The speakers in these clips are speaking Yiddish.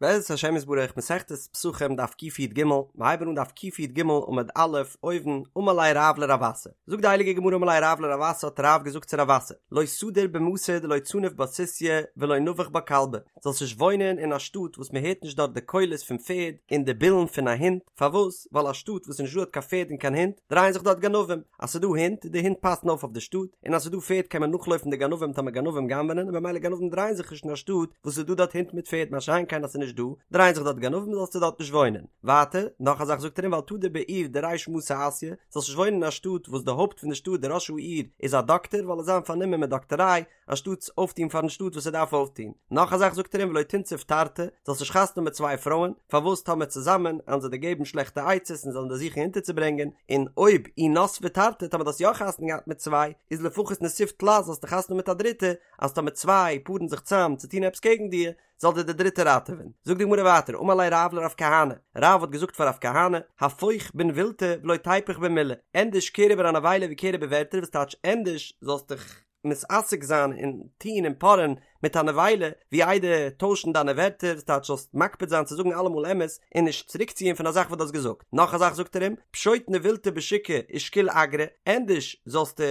בעזרת השם יתברך מסכת פסחים דף קי"ג, מיר הייבן אן דף קי"ג עמוד א', אויבן, אמר ליה רב לרב אסי, זאגט די הייליגע גמרא אמר ליה רב לרב אסי האט רב געזאגט צו רב אסי, לא תדור במתא דלא צניף בה סוסיא ולא נבח בה כלבא, זאלסט נישט וואוינען אין א שטאט וואס מען הערט נישט דארט די קולות פון פערד און די בילן פון א הונט, פארוואס? ווייל א שטאט וואס איז נישט דא דארט קיין פערד און קיין הונט, דרייען זיך דארט גנבים, אז ס'איז דא הינט, די הינט פאסן אויף אויף די שטאט, און אז ס'איז דא פערד קען מען נאכלויפן די גנבים טאמער גנבים גנב'נען, און במילא גנבים דרייען זיך נישט אין א שטאט וואס ס'איז דא דארט הינט מיט פערד מה שאין כן אז ס'איז נישט דא, דרייען זיך דארט גנבים זאלסטו דארט נישט וואוינען. ווייטער, נאך א זאך זאגט ער אים ואל תדור בעיר דריש מתא אסיא, זאלסט נישט וואוינען אין א שטאט וואס די הויפט פון די שטאט די ראש העיר איז א דאקטער ווייל ער וועט זיין פארנומען מיט דאקטעריי, אנשטאטס אויפטון פארן שטאט וואס ער דארף אויפטון. נאך א זאך זאגט ער אים ולא תנסיב תרתי, זאלסט נישט חתונה האבן מיט צוויי פרויען, פארוואס טאמער צוזאמען עלן זיי דיר געבן שלעכטע עצות און זאלן דיר זוכן אונטערצוברענגען, און אויב אי נסבי תרתי טאמער דו האסט יא חתונה געהאט מיט צוויי, איז לפחות נסיב תלת זאלסטו חתונה האבן מיט א דריטע, אז טאמער צוויי פארן זיך צאם צו טון עפעס קעגן דיר, זאל דיר די דריטע ראטעווען. זאגט די גמרא ווייטער, אמר ליה רב לרב כהנא, רב האט געזאגט פאר רב כהנא, הפוך בנבילתא ולא תיפוך במילי, ענדערש קער איבער א נבילה ווי קער איבער ווערטער, וואס טייטש ענדערש זאלסט דיך מתעסק זיין און טון און פארען מיט א נבילה, ווי איידער טוישן דיינע ווערטער, וואס טייטש זאלסט מקפיד זיין צו זאגן אלעמאל אמת און נישט צוריקציען פון א זאך וואס דו האסט געזאגט. נאך א זאך זאגט ער אים, פשוט נבילתא בשוקא ושקיל אגרא, ענדערש זאלסטו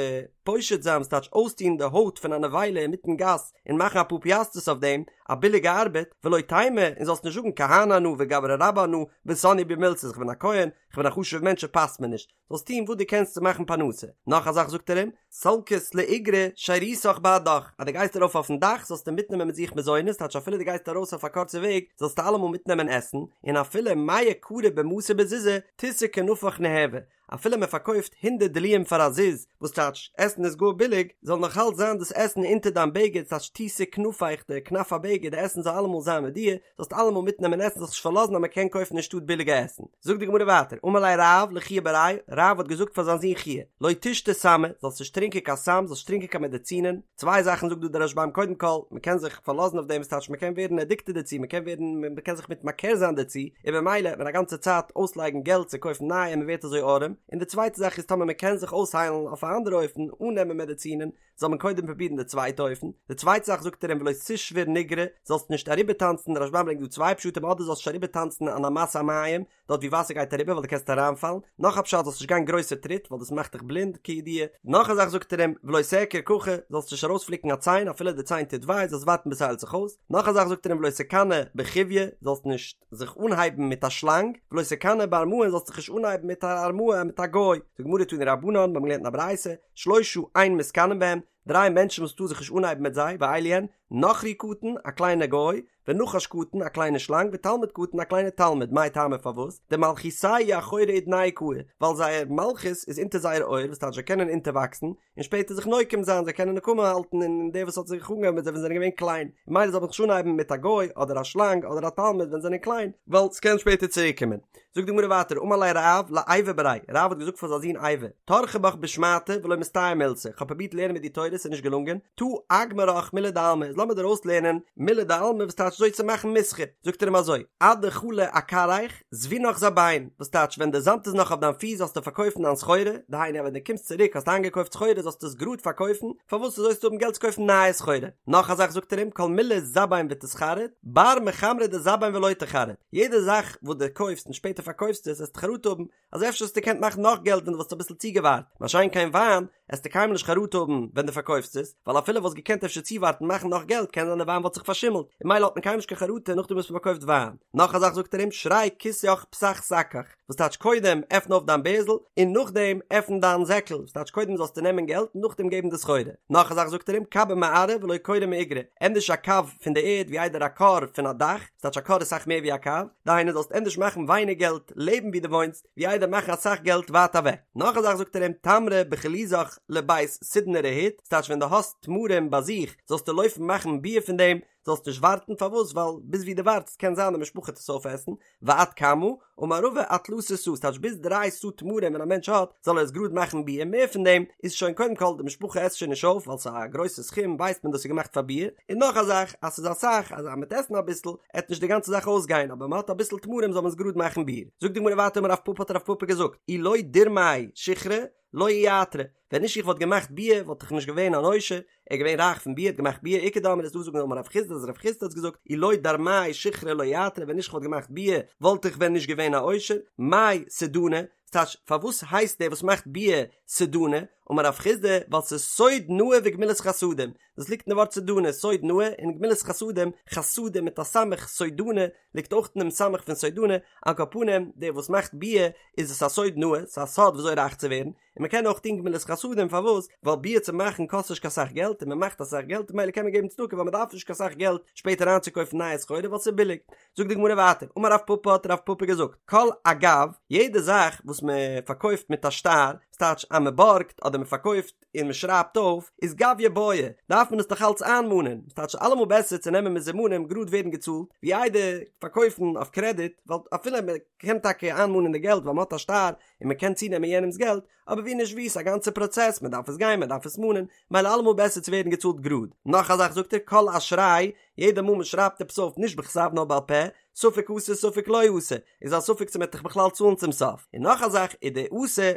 פושט זיין, וואס טייטש אויסטון די הויט פון א נבילה אינמיטן גאס און מאכן אפאר פיאסטערס אויף דעם, א ביליגע ארבעט, ולא תימא, און זאלסט נישט זאגן כהנא אנא וגברא רבה אנא, וסניא בי מילתא, איך בין א כהן, איך בין א חשוב'ער מענטש ס'פאסט מיר נישט, זאלסט טון וואס דו קענסט צו מאכן פרנסה. נאך א זאך זאגט ער אים, סלקת לאיגרא שירותך בהדך, אז דו גייסט ארויף אויפן דאך זאלסטו מיטנעמען מיט זיך מזונות, טייטש אפילו דו גייסט ארויס אויף א קורצע וועג זאלסטו אלעמאל מיטנעמען עסן, און אפילו מאה קרי במתא בזוזא, תיתי כנפיך ניהוי, אפילו מען פארקויפט הונדערט דלועים פאר א זוז, וואס טייטש עסן איז גאר ביליג, זאל נאך אלץ זיין דאס עסן אונטער דיין בגד, ס'טייטש תיתי כנפיך די כנף הבגד, די עסן זאל אלעמאל זיין מיט דיר, זאלסט אלעמאל מיטנעמען עסן זאלסט נישט פארלאזן אז מען קען קויפן אין שטאט ביליגע עסן. זאגט די גמרא ווייטער, אמר ליה רב לחייא בריה, רב האט געזאגט פאר זיין זון חייא, לא תשתי סמא, זאלסט נישט טרינקען קיין סם, זאלסט נישט טרינקען קיין מעדעצינען, צוויי זאכן זאגט דא דער רשב"ם קודם כל, מען קען זיך פארלאזן אויף דעם, וואס טייטש מען קען ווערן עדיקטעד דערצו, מען קען ווערן, מען קען זיך מתמכר זיין דערצו, און במילא וועט מען א גאנצע צייט אויסלייגן געלט צו קויפן נייע און מען ווערט אזוי ארעם, און די צווייטע זאך איז טאמער מען קען זיך אויסהיילן אויף א אנדערע אופן אן נעמען מעדעצינען, זאל מען קודם פרובירן די צווייטע אופן, די צווייטע זאך זאגט ער אים ולא תשבור נגרא, זאלסט נישט אריבערטאנצן, דער רשב"ם ברענגט דא צוויי פשטים אדער זאלסט נישט אריבערטאנצן אן אמת המים, דארט ווי וואסער גייט אריבער ווייל דו קענסט אריינפאלן, נאך א פשט זאלסט נישט גיין גרויסע טריט ווייל דאס מאכט דיך בלינד כידוע, נאך א זאך זאגט ער אים ולא תעקר ככה, זאלסט נישט ארויספליקן א ציין אפילו די ציין טוט וויי זאלסט ווארטן ביז ס'היילט זיך אויס, נאך א זאך זאגט ער אים ולא תקנא בחויא, זאלסט נישט זיך אנהייבן מיט א שלאנג, ולא תקנא בארמאה זאלסט זיך נישט אנהייבן מיט א ארמאה מיט א גוי, זאגט די גמרא תנו רבנן, מיר האבן געלערנט אין א ברייתא, שלושה אין מתקנאין בהם, דריי מענטשן וואס מ'טאר זיך נישט אנהייבן מיט זיי, ואלו הן, נכרי קטן, א קליינע גוי, ונחש קטן, א קליינע שלאנג, ותלמיד קטן, א קליינע תלמיד, מאי טעמא פארוואס? דמלכותייהו אחורי אודנייהו קאי, ווייל זייער מלכות איז אונטער זייער אויער, וואס טייטש זיי קענען אונטערוואקסן, און שפעטער זיך נוקם זיין, זיי קענען נקמה האלטן אין דער וואס האט זיך אנגעהויבן מיט זיי ווען זיי זענען געווען קליין, ממילא זאל מען זיך נישט אנהייבן מיט א גוי, אדער א שלאנג, אדער א תלמיד ווען זיי זענען קליין, ווייל ס'קען שפעטער צוריקקומען. זאגט די גמרא ווייטער אמר ליה רב לאייבו בריה, רב האט געזאגט פאר זיין זון אייבו, טרחי בך בשמעתא ולא מסתייע מילתא, כ'האב פרובירט לערנען מיט דיר תורה ס'איז נישט געלונגען, תא אגמרך מילי דעלמא, איז לאמיר דיר אויסלערנען מילי דעלמא וואס טייטש אזוי צו מאכן מסחר, זאגט ער אים אזוי, אדחלא אכרעיך, זבינך זבין, וואס טייטש ווען די זאמד איז נאך אויף דיין פיס זאלסטו פארקויפן דיין סחורה, דהיינו אז ווען דו קומסט צוריק האסט איינגעקויפט סחורה זאלסטו עס גראד פארקויפן, פארוואס אזוי זאלסטו האבן געלט צו קויפן נייע סחורה, נאך א זאך זאגט ער אים כל מילי זבין ותתחרט, בר מחמרא דזבין ולא תחרט, יעדע זאך וואס דו קויפסט און שפעטער פארקויפסט עס עסטו חרטה האבן אז אפשר האסטו געקענט מאכן נאך געלט ווען דו וואלסט אביסל צוגעווארט, מה שאין כן וויין, עסטו קיינמאל נישט חרטה האבן ווען דו פארקויפסט עס, ווייל אפילו וואלסט געקענט אפשר צואווארטן מאכן נאך געלט קען זיין די וויין וואלט זיך פארשימלט, און ממילא האט מען קיינמאל נישט קיין חרטה נאכדעם וואס מען פארקויפט וויין. נאך א זאך זאגט ער אים, שרי כיסך פתח שקך, וואס טייטש קודם עפן אויף דיין בערזל און נאכדעם עפן דיין זעקל, וואס טייטש קודם זאלסטו נעמען געלט און נאכדעם געבן די סחורה. נאך א זאך זאגט ער אים, קבא מארעא ולא כורא מאיגרא, ענדערש א קב פון די ערד ווי איידער א כור פון א דאך, וואס טייטש א כור איז אסאך מער ווי א קב, דהיינו זאלסט ענדערש מאכן ווייניג געלט לעבן ווי דו וואוינסט, ווי איידער מאכן אסאך געלט ווייט אוועק. נאך א זאך זאגט ער אים, תמרי בחלוזך לבית סודנא רהיט, ס'טייטש ווען דו האסט תמרים ביי זיך זאלסטו לויפן מאכן ביר פון דעם, זאלסט נישט ווארטן, פארוואס? ווייל ביז ווי דו ווארטסט קען זיין די משפחה וועט עס אויפעסן, ועד כמה? אמר רבא עד תלתא סאה, ס'טייטש ביז דריי סאה תמרים ווען א מענטש האט, זאל ער עס גראד מאכן ביר, מער פון דעם איז שוין קודם כל די משפחה עסט שוין נישט אויף ווייל ס'איז א גרויסע סכום ווייסט מען דאס איז געמאכט פאר ביר, און נאך א זאך אז ס'איז אסאך אז אז מ'עט עסן אביסל עט נישט די גאנצע זאך אויסגיין אבער מ'האט אביסל תמרים זאל מען עס גראד מאכן ביר. זאגט די גמרא ווייטער אמר רב פפא האט רב פפא געזאגט אי לא דירמאי שיכרא לא איעתרי, ווען נישט איך וואלט געמאכט ביר וואלט איך נישט געווען אן עושר, ער איז געווען רייך פון ביר, האט געמאכט ביר, איכא דאמרי ס'איז דא וואס זאגן אמר רב חסדא אז רב חסדא האט געזאגט אי לא דרמאי שיכרא לא יתרי ווען נישט כ'וואלט געמאכט ביר וואלט איך ווען נישט געווען א עושר, מאי סודני, ס'טייטש פארוואס הייסט דער וואס מאכט ביר סודני, אמר רב חסדא ווייל ס'איז סוד נאה וגמילות חסדים, דאס ליגט אין די ווארט סודני, סוד נאה און גמילות חסדים, חסדים מיט א סמך, סודני, ליגט אויך אין דעם סמך פון סודני, על כל פנים דער וואס מאכט ביר איז עס א סוד נאה, ס'איז א סוד וויאזוי רייך צו ווערן, און מען קען אויך טון גמילות חסדים פארוואס? ווייל ביר צו מאכן קאסט נישט קיין סאך געלט און מען מאכט אסאך געלט ממילא קען מען געבן צדקה ווייל מען דארף נישט קיין סאך געלט שפעטער איינצוקויפן נייע סחורה ווייל ס'איז ביליג. זאגט די גמרא ווייטער, אמר רב פפא האט רב פפא געזאגט, כל אגב, יעדע זאך וואס מען פארקויפט מיט א שטר, ס'טייטש אז מען בארגט אדער מען פארקויפט און מען שרייבט אויף, איז גביא בעי, דארף מען עס נאך אלץ איינמאנען, ס'טייטש אלעמאל בעסער צו נעמען מזומנים גראד ווערן געצאלט, ווי איידער פארקויפן אויף קרעדיט, ווייל אפילו מען קען טאקע איינמאנען די געלט ווייל מען האט א שטר, און מען קען צונעמען יענעמס געלט, אבער ווי נישט ווי, ס'איז א גאנצע פראצעס, מען דארף עס גיין, מען דארף עס מאנען, מילא אלעמאל בעסער צו ווערן געצאלט גראד. נאך א זאך זאגט ער, כל אשראי, יעדע מאל מען שרייבט עפעס אויף נישט בכתב נאר בעל פה, ספק אתי ספק לא אתי, איז א ספק צו מען וועט דיך בכלל צאלן צום סוף. און נאך א זאך, ודאתי,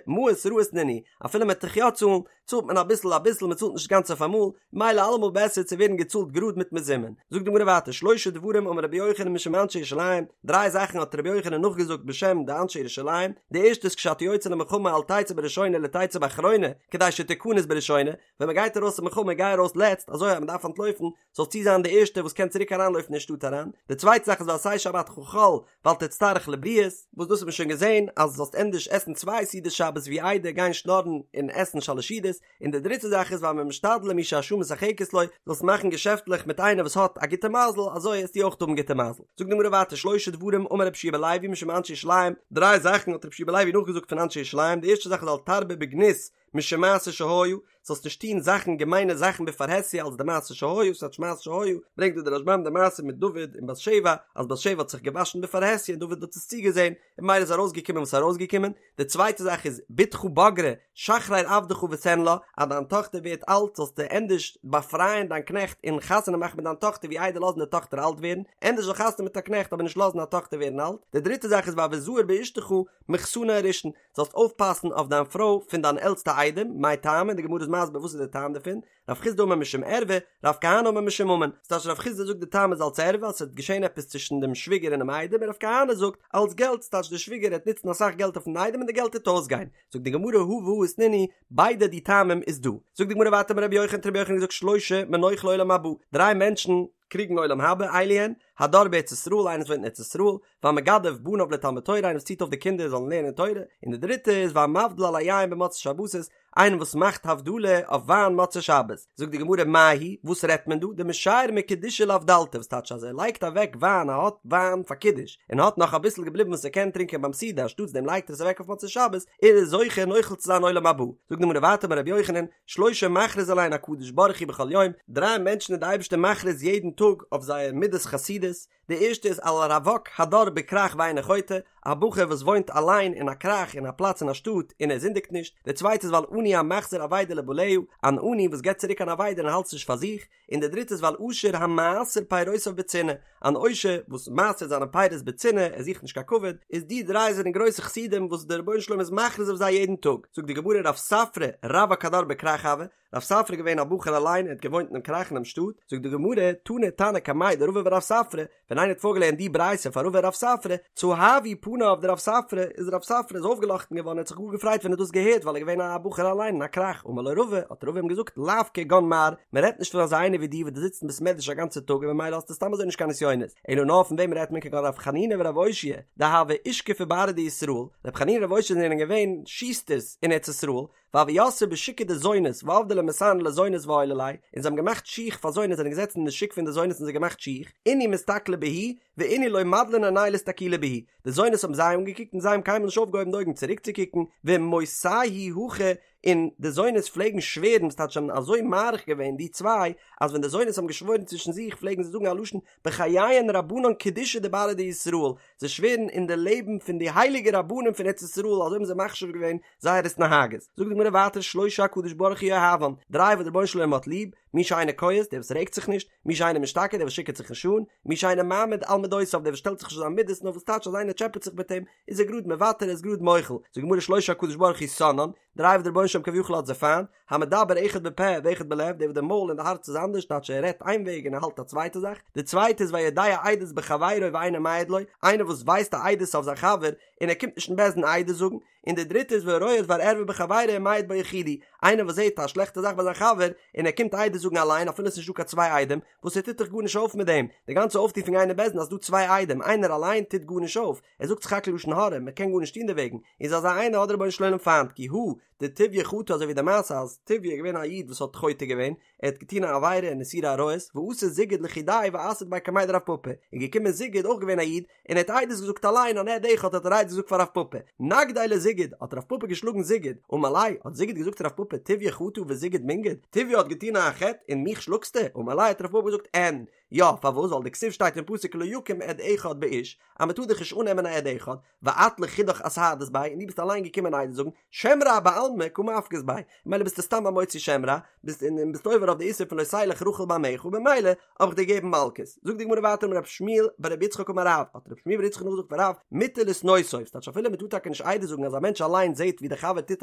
מעות רעות נינהו, אפילו מען וועט דיך יא צאלן, צאלט מען אביסל אביסל מען צאלט נישט גאנץ אויף אמאל, מילא אלעמאל בעסער צו ווערן געצאלט גראד מיט מזומן. זאגט די גמרא ווייטער שלשה דברים אמר רבי יוחנן משום אנשי ירושלים, דריי זאכן האט רבי יוחנן נאכגעזאגט בשם די אנשי ירושלים, די ערשטע איז כשאתה יוצא למלחמה אל תצא בראשונה אלא תצא באחרונה, כדי שתכנס בראשונה, ווען מען גייט ארויס אין מלחמה גיי ארויס לעצט אזוי אז מען דארף אנטלויפן זאלסטו זיין די ערשטע וואס קען צוריק אריינלויפן אין שטאט אריין, די צווייטע זאך איז ועשה שבתך חול ואל תצטרך לבריות, וואס דאס האט מען שוין געזען אז זאלסט ענדערש עסן צוויי סעודות שבת ווי איידער גיין שנארן און עסן שלש סעודות, און די דריטע זאך איז והמשתדל עם מי שהשעה משחקת לו, זאלסט מאכן געשעפטלעך מיט איינער וואס האט א גוטע מזל, אזוי וועסטו אויך האבן גוטע מזל. זאגט די גמרא ווייטער שלשה דברים אמר רבי יהושע בן לוי משום אנשי ירושלים, דריי זאכן האט רבי יהושע בן לוי נאכגעזאגט פון אנשי ירושלים, די ערשטע זאך איז אל תרבה בגנות משום מעשה שהיה, זאלסט נישט טון זאכן געמיינע זאכן בפרהסיא אלס די מעשה שהיה, ס'טייטש מעשה שהיה, ברענגט דא דער רשב"ם די מעשה מיט דוד און בת שבע, אז בת שבע האט זיך געוואשן בפרהסיא און דוד האט עס צוגעזען, און ממילא איז ארויסגעקומען וואס איז ארויסגעקומען, די צווייטע זאך איז בתך בגרה שחרר עבדך ותן לה, אז דיין טאכטער ווערט אלט זאלסטו ענדערש באפרייען דיין קנעכט און חתונה מאכן מיט דיין טאכטער ווי איידער לאזן די טאכטער אלט ווערן, ענדערש זאל חתונה מיט א קנעכט אבער נישט לאזן א טאכטער ווערן אלט, די דריטע זאך איז והוי זהיר באשתך מחתנה הראשון, זאלסט אויפפאסן אויף דיין פרוי פון דיין עלטסטע איידעם, מאי טעמא, די גמרא איז מסביר וואס איז די טעם דערפון, רב חסדא אמר משום ערווה, רב כהנא אמר משום ממון, ס'טייטש רב חסדא זאגט די טעם איז אלס ערווה אז ס'וועט געשען עפעס צווישן דעם שוויגער און דעם איידעם און רב כהנא זאגט אלס געלט, ס'טייטש די שוויגער העט נוצן אסאך געלט אויפן איידעם און די געלט העט אויסגיין, זאגט די גמרא הא והא איתנהו, ביידע די טעמים איז דא. זאגט די גמרא ווייטער אמר רבי יוחנן האט רבי יוחנן געזאגט שלשה מנוחלי עולם הבא, דריי מענטשן קריגן עולם הבא, אלו הן, הדר בארץ ישראל איינער וואס וואוינט אין ארץ ישראל, והמגדל בניו לתלמוד תורה איינער וואס ציט אויף די קינדער זאלן לערנען תורה, און די דריטע איז והמבדיל על היין במוצאי שבתות איינער וואס מאכט הבדלה אויף וויין מוצאי שבת, זאגט די גמרא מאי היא, וואס רעדט מען דא, דמשייר מקידושא לאבדלתא וואס טייטש אז ער לייגט אוועק וויין ער האט וויין פאר קידוש און האט נאך אביסל געבליבן וואס ער קען טרינקען ביים סעודה אנשטאטס דעם לייגט ער עס אוועק אויף מוצאי שבת, ער איז זוכה נוחל צו זיין עולם הבא, זאגט די גמרא ווייטער אמר רבי יוחנן, שלשה מכריז עליהן הקדוש ברוך הוא בכל יום, דריי מענטשן איז די אייבערשטער מכריז יעדן טאג אויף זייער מידת חסידות, די ערשטע איז על הרווק הדר בכרך ואינו חוטא, א בחור וואס וואוינט אליין אין א כרך אין א פלאץ אין א שטאט און ער זינדיגט נישט, די צווייטע איז ועל עני המחזיר אבידה לבעליה, אן עני וואס געבט צוריק אן אבידה און האלט עס נישט פאר זיך, און די דריטע איז ועל עשיר המעשר פירותיו בצנעה, אן עושר וואס מעשר'ט זיינע פירות בצנעה, ער זוכט נישט קיין כבוד, איז די דריי זענען גרויסע חסידים וואס דער רבונו של עולם איז מכריז אויף זיי יעדן טאג, זאגט די גמרא רב ספרא רווק הדר בכרך הוה, רב ספרא איז געווען א בחור אליין ער האט געוואוינט אינעם כרך אינעם שטאט, זאגט די גמרא, תני תנא קמיה דרבא ורב ספרא, ווען איינער האט פארגעלערנט די ברייתא פאר רבא און רב ספרא, צהבו פניו דרב ספרא, איז רב ספרא איז אויפגעלאכטן געווארן ער האט זיך גאר געפרייט ווען ער האט דאס געהערט ווייל ער איז געווען א בחור אליין אין א כרך, אמר לו רבא, האט רבא אים געזאגט, לאו כגון מר, מען רעדט נישט פון אזא איינער ווי דיר וואס דו זיצט אין בית מדרש א גאנצע טאג און ממילא האסטו סתם אזוי נישט קיין נסיונות, אלא נאר פון וועם רעדט מען כגון רב חנינא ורב אושעיא, דהוו אושכפי בארעא דישראל, רב חנינא און רב אושעיא זענען געווען שוסטערס אין ארץ ישראל, והוו יתבי בשוקא דזונות ועבדי ליה מסאני לזונות ועיילי להו, און זיי האבן געמאכט שיך פאר זונות זענען געזעצן אין די שוק פון די זונות און זיי געמאכט שיך, אינהו מסתכלי בהו, ואינהו לא מדלן עינייהו לאסתכולי בהו, די זונות האבן זיי אנגעקוקט און זיי האבן קיינמאל נישט אויפגעהויבן די אויגן צוריקצוקוקן, ומותייהו הכי, און די זונות פלעגן שווערן, וואס טייטש זיי האבן אזוי מעריך געווען די צוויי, אז ווען די זונות האבן געשוואוירן צווישן זיך פלעגן זיי זאגן א לשון בחייהון רבנן קדישי דבארעא דישראל, זיי שווערן אין די לעבן פון די הייליגע רבנים פון ארץ ישראל, אזוי האבן זיי מחשיב געווען זייער התנהגות. זאגט די גמרא ווייטער שלשה הקדוש ברוך הוא אוהבן, דריי וואס דער רבונו של עולם האט ליב, מי שאינו כועס, דער וואס רעגט זיך נישט, מי שאינו משתכר, דער וואס שיכור'ט זיך נישט אן, מי שאינו מעמיד על מדותיו, דער וואס שטעלט זיך נישט אויף זיין מידות, נאר וואס טייטש אז איינער טשעפעט זיך מיט אים, איז ער גראד מוותר, ער איז גראד מוחל. זאגט די גמרא שלשה הקדוש ברוך הוא שונאן, דריי וואס דער רבונו של עולם כביכול האט זיי פיינט, המדבר אחד בפה ואחד בלב, דער וואס די מויל און די הארץ איז אנדערש, טייטש ער רעדט איין וועג און ער האלט א צווייטע זאך, די צווייטע איז והיודע עדות בחבירו ואינו מעיד לו, איינער וואס ווייסט א עדות אויף זיין חבר און ער קומט נישט אין בית דין עדות זאגן, און די דריטע איז והרואה דבר ערווה בחבירו ומעיד בו יחידי, איינער וואס זעט א שלעכטע זאך ביי זיין חבר און ער קומט עדות זאגן אליין אפילו עס איז נישט דא קיין צוויי עדים, וואס ער טוט דאך גארנישט אויף מיט דעם, די גאנצע אויפטו פון גיין אין בית דין אז ס'דא צוויי עדים, איינער אליין טוט גארנישט אויף, ער זאגט סך הכל לשון הרע, מען קען גארנישט טון דערוועגן, איז אזא איינער האט דער רבונו של עולם פיינט, כי הא דטוביה חטא אזוי ווי די מעשה אז טוביה איז געווען א איד וואס האט חוטא געווען, ער האט געטון א עבירה אין איסורי עריות, ואתא זיגוד לחודיה ואסהיד ביה קמיה דרב פפא, איז געקומען זיגוד אויך געווען א איד, און ער האט עדות געזאגט אליין אן עד אחד האט ער עדות געזאגט פאר רב פפא, נגדיה לזיגוד, האט רב פפא געשלאגן זיגוד, אמר ליה, האט זיגוד געזאגט צו רב פפא טוביה חטא וזיגוד מינגד, טוביה האט געטון א חטא און מיך שלאגסטו, אמר ליה האט רב פפא געזאגט אין, יא, פארוואס ווייל דכתיב שטייט אין פסוק לא יקום עד אחד באיש, אז מען טאר דאך נישט אננעמען א עד אחד, ואת לחודך אסהדת ביה, און דו ביסט אליין געקומען עדות זאגן, שם רע בעלמא קא מפקת ביה, ממילא ביסטו סתם א מוציא שם רע, ביסט און ביסט עובר אויף די איסור פון לא תלך רכיל בעמיך, במילא האב איך דיר געגעבן מלקות. זאגט די גמרא ווייטער אמר רב שמואל בר רבי יצחק אמר רב, האט רב שמואל בר יצחק נאכגעזאגט פון רב, מותר לשנאותו, ס'טייטש אפילו מ'טאר טאקע נישט עדות זאגן אז א מענטש אליין זעט ווי דער חבר טוט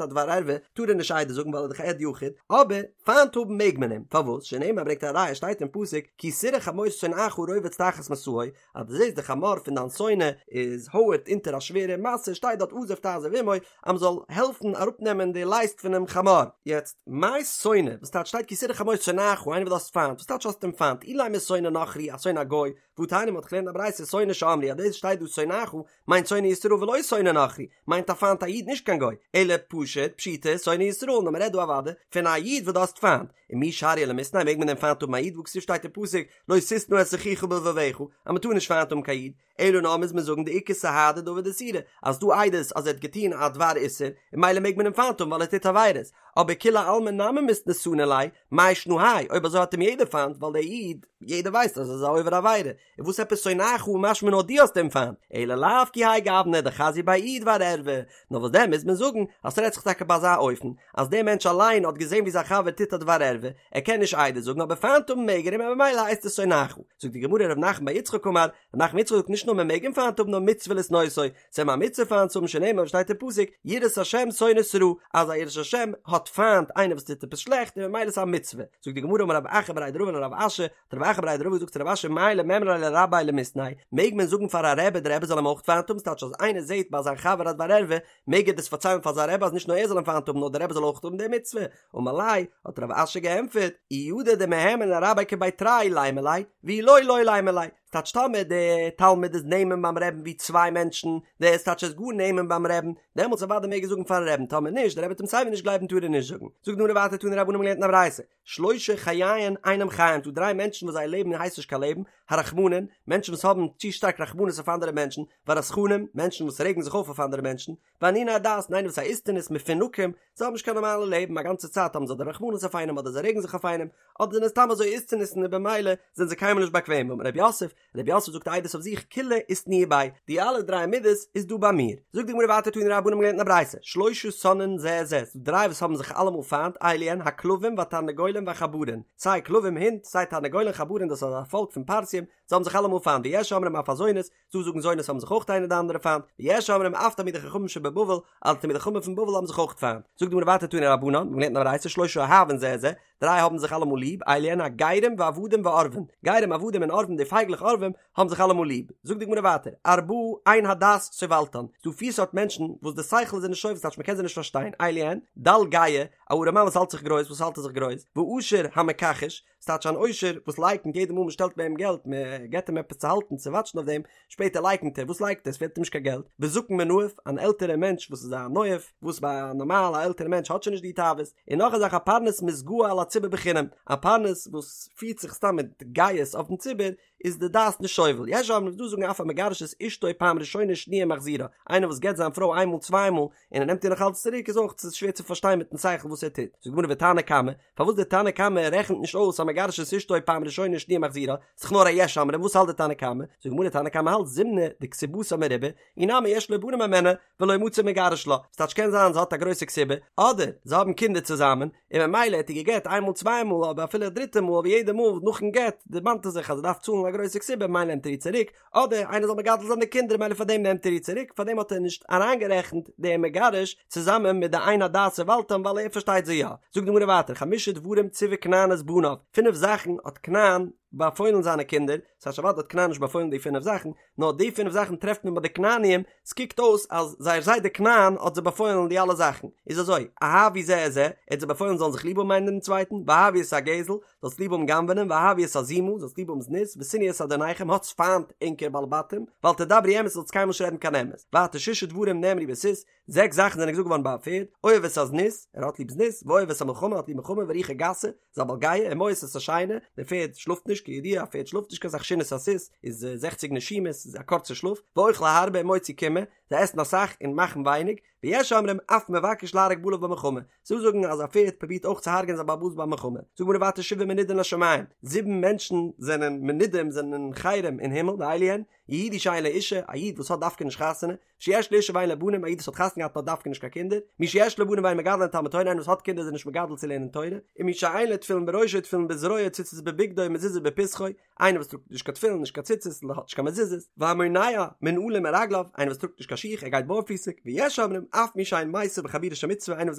א דבר ערווה, טאר ער נישט עדות זאגן ווייל ער איז דאך עד יחיד, אבער פיינט האבן מעג מען אים, פארוואס? שנאמר ברענגט א ראיה שטייט אין פסוק כי תראה חמור שונאך רובץ תחת משאו, אז דו זעסט די חמור פון דיין שונא איז הויערט אונטער א שווערע משא שטייט דארט עזוב תעזוב עמו אז מען זאל העלפן אראפנעמען די לייסט פונעם חמור. יעצט, מאי שונא? וואס טייטש שטייט כי תראה חמור שונאך איינער וואס דו האסט פיינט? וואס טייטש האסט אים פיינט? אילימא שונא נכרי א שונא א גוי, והתניא מ'האט געלערנט א ברייתא שונא שאמרו אז דאס שטייט דא שונאך מיינט שונא ישראל ולא שונא נכרי מיינט א פיינט א איד נישט קיין גוי אלא פשוט פשיטא שונא ישראל נאר מען רעדט דא אוודאי פון א איד וואס דו האסט פיינט ומי שריא למיתניה מעג מען דען פיינט האבן א איד והכתיב שטייט אין פסוק לא תשנא את אחיך בלבבך אז מען טאר נישט פיינט האבן קיין איד אלא נאר מוז מען זאגן דאיכא סהדי דעביד איסורא אז ס'דא עדות אז ער האט געטון א דבר איסור און ממילא מעג מען אים פיינט האבן ווייל ער טוט עבירות אבער כולי עלמא נמי מיתנא סני ליה מאי שנא האי אויב אזוי האט אים יעדער פיינט ווייל דער איד יעדער ווייסט אז ער איז א עובר עבירה און וואס עפעס שונאך משמע נאר דו האסט אים פיינט, אלא לאו כי האי גוונא דחזיא ביה איהו דבר ערווה, נאר וואס דען מוז מען זאגן אז ס'רעדט זיך טאקע ביי אזא אופן אז דער מענטש אליין האט געזען ווי זיין חבר טוט א דבר ערווה, ער קען נישט עדות זאגן אבער פיינט האבן מעג ער אים און ממילא הייסט עס שונאך. זאגט די גמרא ר' נחמן בר יצחק אמר, ר' נחמן יצחק זאגט נישט נאר מען מעג אים פיינט האבן נאר מצוה לשנאותו, ס'איז אים א מצוה פיינט צו האבן שנאמר ווי שטייט אין פסוק יראת השם שונאת רע, אז א יראת השם האט פיינט איינער וואס טוט עפעס שלעכט און ממילא איז א מצוה. זאגט די גמרא אמר רב אחא בריה דרבא לרב אשי, האט רב אחא בריה דרבא געזאגט צו רב אשי מהו למימרא ליה לרביה למיתנייה, מעג מען זאגן פאר א רבי די רבי זאל אים אויך פיינט האבן, ס'טייטש אז איינער זעט ביי זיין חבר א דבר ערווה, מעג ער דאס פארציילן פאר זיין רבי אז נישט נאר ער זאל אים פיינט האבן נאר די רבי זאל אויך האבן די מצוה, אמר ליה, האט רב אשי געענטפערט, אי ידע דמהימן לרביה כבי תרי לימא ליה, ואי לא לא לימא ליה, ס'טייטש טאמער די תלמיד איז נאמן ביים רעבן ווי צוויי מענטשן, דאס טייטש ער איז גאר נאמן ביים רעבן, דעמאלטס אוודאי מעג ער זאגן פארן רעבן, טאמער נישט, די רבי וועט אים סייווי נישט גלייבן טאר ער נישט זאגן. זאגט די גמרא ווייטער תנו רבנן מ'האט געלערנט אין א ברייתא, שלשה חייהן אינם חיים, ס'דא דריי מענטשן וואס זייער לעבן הייסט נישט קיין לעבן, הרחמנים, מענטשן וואס האבן צו שטארק רחמנות אויף אנדערע מענטשן, והרתחנים, מענטשן וואס רעגן זיך אויף אויף אנדערע מענטשן, ואניני הדעת, און איינער וואס א איסטניס, מפונקים, זיי האבן נישט קיין נארמאלע לעבן, א גאנצע צייט האבן זיי אדער רחמנות אויף איינעם אדער זיי רעגן זיך אויף איינעם, אדער זענען סתם אזוי איסטניסן און במילא זענען זיי קיינמאל נישט באקוועם, אמר רב יוסף, רב יוסף זאגט עדות אויף זיך כולהו איתנהו בי, די אלע דריי מידות איז דא ביי מיר. זאגט די גמרא ווייטער תנו רבנן מ'האט געלערנט אין א ברייתא, שלשה שונאין זה את זה, ס'דא דריי וואס האבן זיך אלעמאל פיינט, אלו הן הכלבים והתרנגולים והחברין, סיי כלבים הינט, סיי תרנגולים חברין דאס איז א פאלק פון פרסים, זיי האבן זיך אלעמאל פיינט, ויש אומרים אף הזונות, ס'דא זאגן זונות האבן זיך אויך איינער די אנדערע פיינט, ויש אומרים אף תלמידי חכמים שבבבל, אז תלמידי חכמים פון בבל האבן זיך אויך פיינט. זאגט די גמרא ווייטער תנו רבנן, מ'האט געלערנט אין א ברייתא שלשה אוהבין זה את זה, דריי האבן זיך אלעמאל ליב, אלו הן הגרים ועבדים ועורבים, גרים עבדים און עורבים די פייגלעך עורבים האבן זיך אלעמאל ליב. זאגט די גמרא ווייטער, ארבעה אין הדעת סובלתן, ס'דא פיר סארט מענטשן וואס די שכל איז זיי נישט סובל ס'טייטש מ'קען זיי נישט פארשטיין, אלו הן, דל גאה, א ארעמאן וואס האלט זיך גרויס, וואס האלט ער זיך גרויס, ועשיר המכחש, ס'טייטש אן עושר וואס לייקנט יעדע מאל מ'שטעלט ביי אים געלט, מ'געט אים עפעס צו האלטן צו וואטשן אויף דעם, שפעטער לייקנט ער, וואס לייקנט ער? עס פעלט אים נישט קיין געלט, וזקן מנאף, אן עלטערער מענטש וואס איז א נואף, וואס ביי א נארמאל א עלטערע מענטש האט שוין נישט די תאוות, און נאך א זאך א פרנס מתגאה על הציבור בחינם, א פרנס וואס פירט זיך סתם מיט גאות אויפן ציבור, איז די דעת נישט סובל, יש אומרים ס'דא זאגן אף המגרש את אשתו פעם ראשונה שניה ומחזירה, איינער וואס גט זיין פרוי איינמאל צוויי מאל, און ער נעמט איר נאך אלץ צוריק איז אויך שווער צו פארשטיין מיטן שכל וואס ער טוט, זאגט די גמרא ותנא קמא, פארוואס דער תנא קמא רעכנט נישט אויס המגרש את אשתו פעם ראשונה שניה ומחזירה, ס'איז דאך נאר א יש אומרים, וואס האלט דער תנא קמא? זאגט די גמרא תנא קמא האלט זימנא דכתובתה מרובה, אי נמי יש לו בנים הימנה ולא מצי מגרש לה, ס'טייטש קען זיין זי האט א גרויסע כתובה, אדער זיי האבן קינדער צוזאמען, און ממילא האט ער גע'גט איין מאל צוויי מאל אבער אפילו א דריטע מאל אבער יעדע מאל נאכן גט דערמאנט ער זיך אז ער דארף צאלן א. גרויסע כתובה ממילא נעמט ער איר צוריק, אדער איינער זאל מגדל זיין די קינדער ממילא פאר דעם נעמט ער איר צוריק, פאר דעם האט ער נישט אריינגערעכנט דעם מגרש צוזאמען מיט די אין הדעת סבלתם ווייל ער פארשטייט זיי יא. זאגט די גמרא ווייטער חמשה דברים ציווה כנען את בניו, פינף זאכן האט כנען באפוילן זיינע קינדער, ס'טייטש אוודאי האט כנען נישט באפוילן די פינף זאכן, נאר די פינף זאכן טרעפט מען ביי די כנעניים, ס'קוקט אויס אז זייער זיידע כנען האט זיי באפוילן די אלע זאכן, איז אזוי, אהבו זה את זה, ער האט זיי באפוילן זאלן זיך ליב האבן איינער דעם צווייטן, ואהבו את הגזל, זאלסט ליב האבן גנב'נען, ואהבו את הזימה, זאלסט ליב האבן זנות, ושנאו את אדוניכם, האטס פיינט ענקער בעלי בתים, ואל תדברו אמת, זאלסט קיינמאל נישט רעדן קיין אמת. ווייטער ששה דברים נאמרו בסוס, זעקס זאכן זענען געזאגט געווארן ביי א פערד, אוהב את הזנות, ער האט ליב זנות, ואוהב את המלחמה, ער האט ליב מלחמה, ורוחו גסה, איז א בעל גאוה, ומואס את השינה, דער פערד שלאפט נישט, כידוע א פערד שלאפט נישט קיין סך שינת הסוס איז זעכציג נשימות, איז א קורצע שלאף, ואוכל הרבה ומוציא קימעא, זיי עסן אסאך און מאכן ווייניג, ויש אומרים אף מבקש להרוג בעליו במלחמה, ס'דא זאגן אז א פערד פרובירט אויך צו הרג'ענען זיין בעל הבית ביי מלחמה, זאגט די גמרא ווייטער שבעה מנודים לשמים, זיבן מענטשן זענען מנודים זענען אין חרם אין הימל, ואלו הן, יהודי שאין לו אישה, א איד וואס האט דווקא נישט חתונה, שיש לו אישה ואין לו בנים, א איד וואס האט חתונה געהאט און האט דווקא נישט קיין קינדער, מי שיש לו בנים ואין מגדלן לתלמוד תורה, איינער וואס האט קינדער איז ער נישט מגדל צו לערנען תורה, און מי שאין לו תפילין בראשו תפילין בזרועו ציצית בבגדו ומזוזה בפתחו, איינער וואס טראגט נישט קיין תפילין נישט קיין ציצית און האט נישט קיין מזוזות, והמונע מנעלים מרגליו, איינער וואס טראגט נישט קיין שיך ער גייט בארפיסיג, ויש אומרים אף מי שאין מיסב בחבורה של מצוה, איינער וואס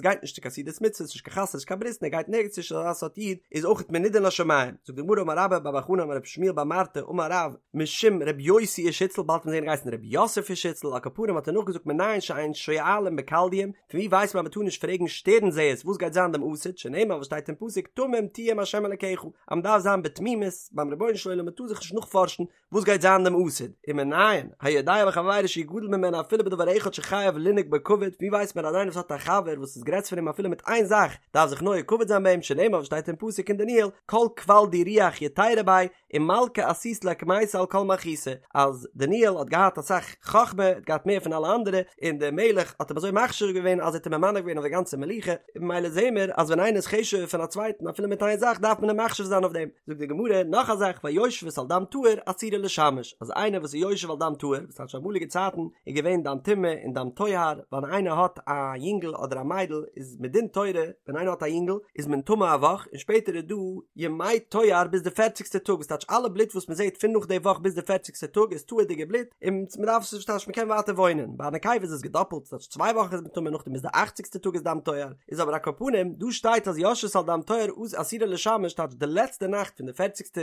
גייט נישט צו קיין סעודת מצוה, נישט קיין חתונה נישט קיין ברית און ער גייט נערגעץ נישט אזא סארט איד איז אויך מנודה לשמים, זאגט די גמרא אמר רבה בר בר חנה אמר רבי שמואל בר מרתא אמר רב, משום רבי יוסי איש הוצל, באלד וועט מען זעהן געהייסן רבי יוסף איש הוצל, על כל פנים האט ער נאכגעזאגט מנין שאין שואלים בכלדיים, פון ווי ווייסט מען אז מען טאר נישט פרעגן שטערן זעערס וואס גייט זיין דעם עתיד, שנאמר וואס שטייט אין פסוק תמים תהיה עם ה' אלקיך, אז מען דארף זיין בתמימות ביים רבונו של עולם מען טאר זיך נישט נאכפארשן וואס גייט זיין דעם עתיד, ומנין היודע בחבירו שהוא גדול ממנו אפילו בדבר אחד שחייב לנהוג בו כבוד, ווי ווייסט מען אז איינער וואס האט א חבר וואס איז גרעסער פון אים אפילו מיט איין זאך דארף זיך נוהג כבוד זיין ביי אים, שנאמר וואס שטייט אין פסוק אין דניאל כל כבל די רוח יתירא ביה, ומלכא עשית ליה קמייתא על כל מלכותא, אז דניאל האט געהאט אסאך חכמה, האט געהאט מער פון אלע אנדערע, און דער מלך האט אים אזוי מחשיב געווען אז ער האט אים ממנה געווען אויף די גאנצע מלוכה, און ממילא זעהן מיר אז ווען איינער איז חשוב'ער פון א צווייטן אפילו מיט איין זאך דארף מען אים מחשיב זיין אויף דעם. זאגט די גמרא נאך א זאך והיושבת על דם טהור אסורה לשמש, אז איינער וואס איז יושב על דם טהור, וואס טייטש אמאליגע צייטן איז געווען דם טומאה און דם טוהר, ווען איינער האט א יונגל אדער א מיידל איז מדין תורה ווען איינער האט א יונגל איז מען טמא א וואך און שפעטער איז דא ימי טוהר ביז די פערציגסטע טאג וואס טייטש אלע בלוט וואס מען זעט פון נאך די וואך ביז די פערציגסטע טאג איז טהור'דיגע בלוט און מען דארף עס נישט טייטש מען קען ווייטער וואוינען ביי א נקבה איז עס געדאפלט ס'טייטש צוויי וואכן איז מען טמא נאכדעם ביז די אכציגסטע טאג איז דם טוהר איז אבער על כל פנים דא שטייט אז יושבת על דם טוהר אסורה לשמש טייטש די לעצטע נאכט פון די פערציגסטע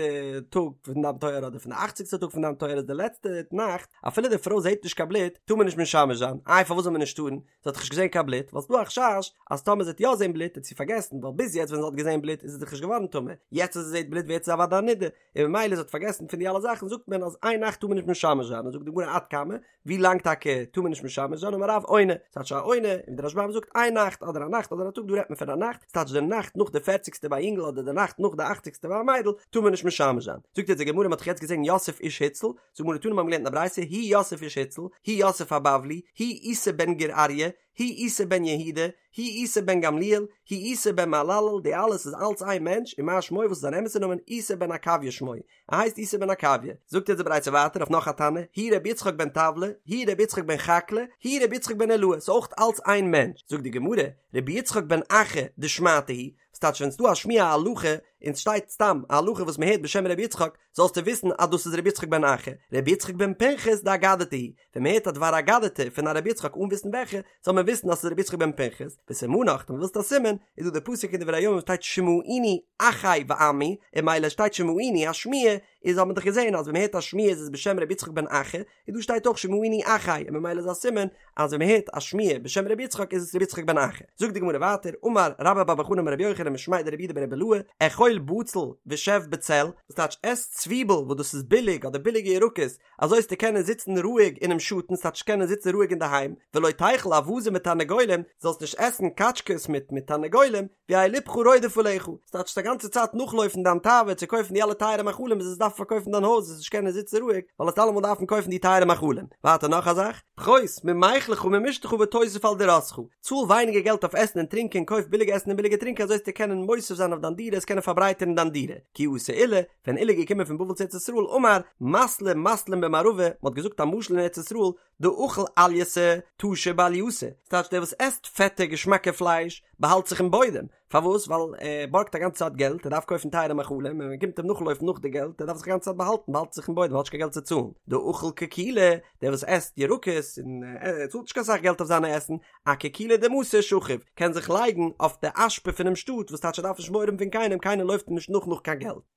טאג פון דם טוהר אדער פון די אכציגסטע טאג פון דם טוהר איז די לעצטע נאכט אפילו די פרוי זעט נישט קיין בלוט טאר מען נישט משמש זיין איי פארוואס זאל מען נישט טארן זי האט דאך נישט געזען קיין בלוט, ווייל ס'דא א חשש אז טאמער זי וועט יא זען בלוט וועט זי פארגעסן, ווייל ביז יעצט ווען זי האט געזען בלוט איז זי דאך נישט געווארן טמא, יעצט אז זי זעט בלוט ווערט זי אוודאי א נדה, און ממילא זי האט פארגעסן פון די אלע זאכן זאגט מען אז איין נאכט טאר מען נישט משמש זיין, און זאגט די גמרא עד כמה, ווי לאנג טאקע טאר מען נישט משמש זיין, אמר רב עונה, ס'טייטש א עונה, און דער רשב"ם זאגט איין נאכט אדער א נאכט אדער א טאג דא רעדט מען פון א נאכט, ס'טייטש די נאכט נאך די פערציגסטע ביי א יונגל אדער די נאכט נאך די אכציגסטע ביי א מיידל טאר מען נישט משמש זיין, זאגט יעצט די גמרא מ'האט דאך יעצט געזען יוסף איש הוצל, זאגט די גמרא תנא מיר האבן געלערנט אין א ברייתא הוא יוסף איש הוצל, הוא יוסף הבבלי, הוא איסי בן גור אריה, הוא איסי בן יהודה, הוא איסי בן גמליאל, הוא איסי בן מהללאל, די אלעס איז אלץ איין מענטש, ומה שמו וואס איז זיין אמת'ע נאמען, איסי בן עקביא שמו, ער הייסט איסי בן עקביא. זאגט אונז די ברייתא ווייטער אויף נאך א תנא, הוא רבי יצחק בן טבלא, הוא רבי יצחק בן חקלא, הוא רבי יצחק בן אילעאי, ס'איז אויך אלץ איין מענטש. זאגט די גמרא, רבי יצחק בן אחא דשמעתא היא, ס'טייטש ווען ס'דא א שמועה א הלכה, און ס'שטייט סתם א הלכה וואס מ'הערט בשם רבי יצחק, זאלסטו וויסן אז דאס איז רבי יצחק בן אחא, רבי יצחק בן פנחס דאגדתא היא, ווען מ'הערט א דבר אגדתא פון א רבי יצחק אן וויסן וועלכע, זאל מען וויסן אז ס'איז רבי יצחק בן פנחס, וסימנך, טאמער ווילסטו א סימן, איז דא די פסוק אין דברי הימים וואס שטייט שמעוני אחי ועמי, און ממילא שטייט שמעוני א שמועה, איז האט מען דאך געזען אז ווען מ'הערט א שמועה איז עס בשם רבי יצחק בן אחא, און דא שטייט אויך שמעוני אחי און ממילא איז א סימן אז ווען מען הערט א שמועה בשם רבי יצחק איז עס רבי יצחק בן אחא. זאגט די גמרא ווייטער, אמר רבה בר בר חנה אמר רבי יוחנן משמיה דרב יהודה ברבי אילעא, אכול בצל ושב בצל, וואס טייטש עס צוויבל וואס דאס איז ביליג אדער ביליגע ירקות, אזוי וועסטו קענען זיצן רואיג אינעם שאטן, ס'טייטש קענען זיצן רואיג אינדערהיים, ולא תיכול אווזים ותרנגולים, זאלסט נישט עסן קאטשקעס מיט מיט תרנגולים, ויהא לבך רודף עליך, ס'טייטש א גאנצע צייט נאכלויפן דיין תאווה צו קויפן די אלע טייערע מאכלים ביז וועסט דארפן פארקויפן דיין הויז וועסט נישט קענען זיצן רואיג ווייל וועסט אלעמאל דארפן קויפן די טייערע מאכלים. ווייטער נאך א זאך, פחות ממיכלך וממשתיך ותוסיף על דירתך, צאל ווייניגער געלט אויף עסן און טרינקען, קויף ביליגע עסן און ביליגע טרינקען אזוי וועסטו קענען מוסיף זיין אויף דיין דירה, וועסט קענען פארברייטערן דיין דירה. כי אתא עולא, ווען עולא איז געקומען פון בבל צו ארץ ישראל, אמר, מתלא מתלין במערבא, מ'האט געזאגט א משל אין ארץ ישראל, דאכיל עלייתא טשי בעלייתא, ס'טייטש דער וואס עסט פעטע געשמאקע פלייש באהאלט זיך אין בוידעם, פארוואס? ווייל ער בארגט א גאנצע צייט געלט, ער דארף קויפן טייערע מאכלים, און מען קומט אים נאכלויפן נאך די געלט, ער דארף זיך א גאנצע צייט באהאלטן, באהאלט זיך אין בוידעם, האט נישט קיין געלט צו צאלן. דאכיל קיקולי, דער וואס עסט ירקות, און ער צאלט נישט קיין סאך געלט אויף זיינע עסן, אקיקולא דמתא שכיב, קען זיך לייגן אויף די אשפה פונעם שטאט, וואס טייטש ער דארף נישט מורא האבן פון קיינעם, קיינער לויפט אים נישט נאך נאך קיין געלט.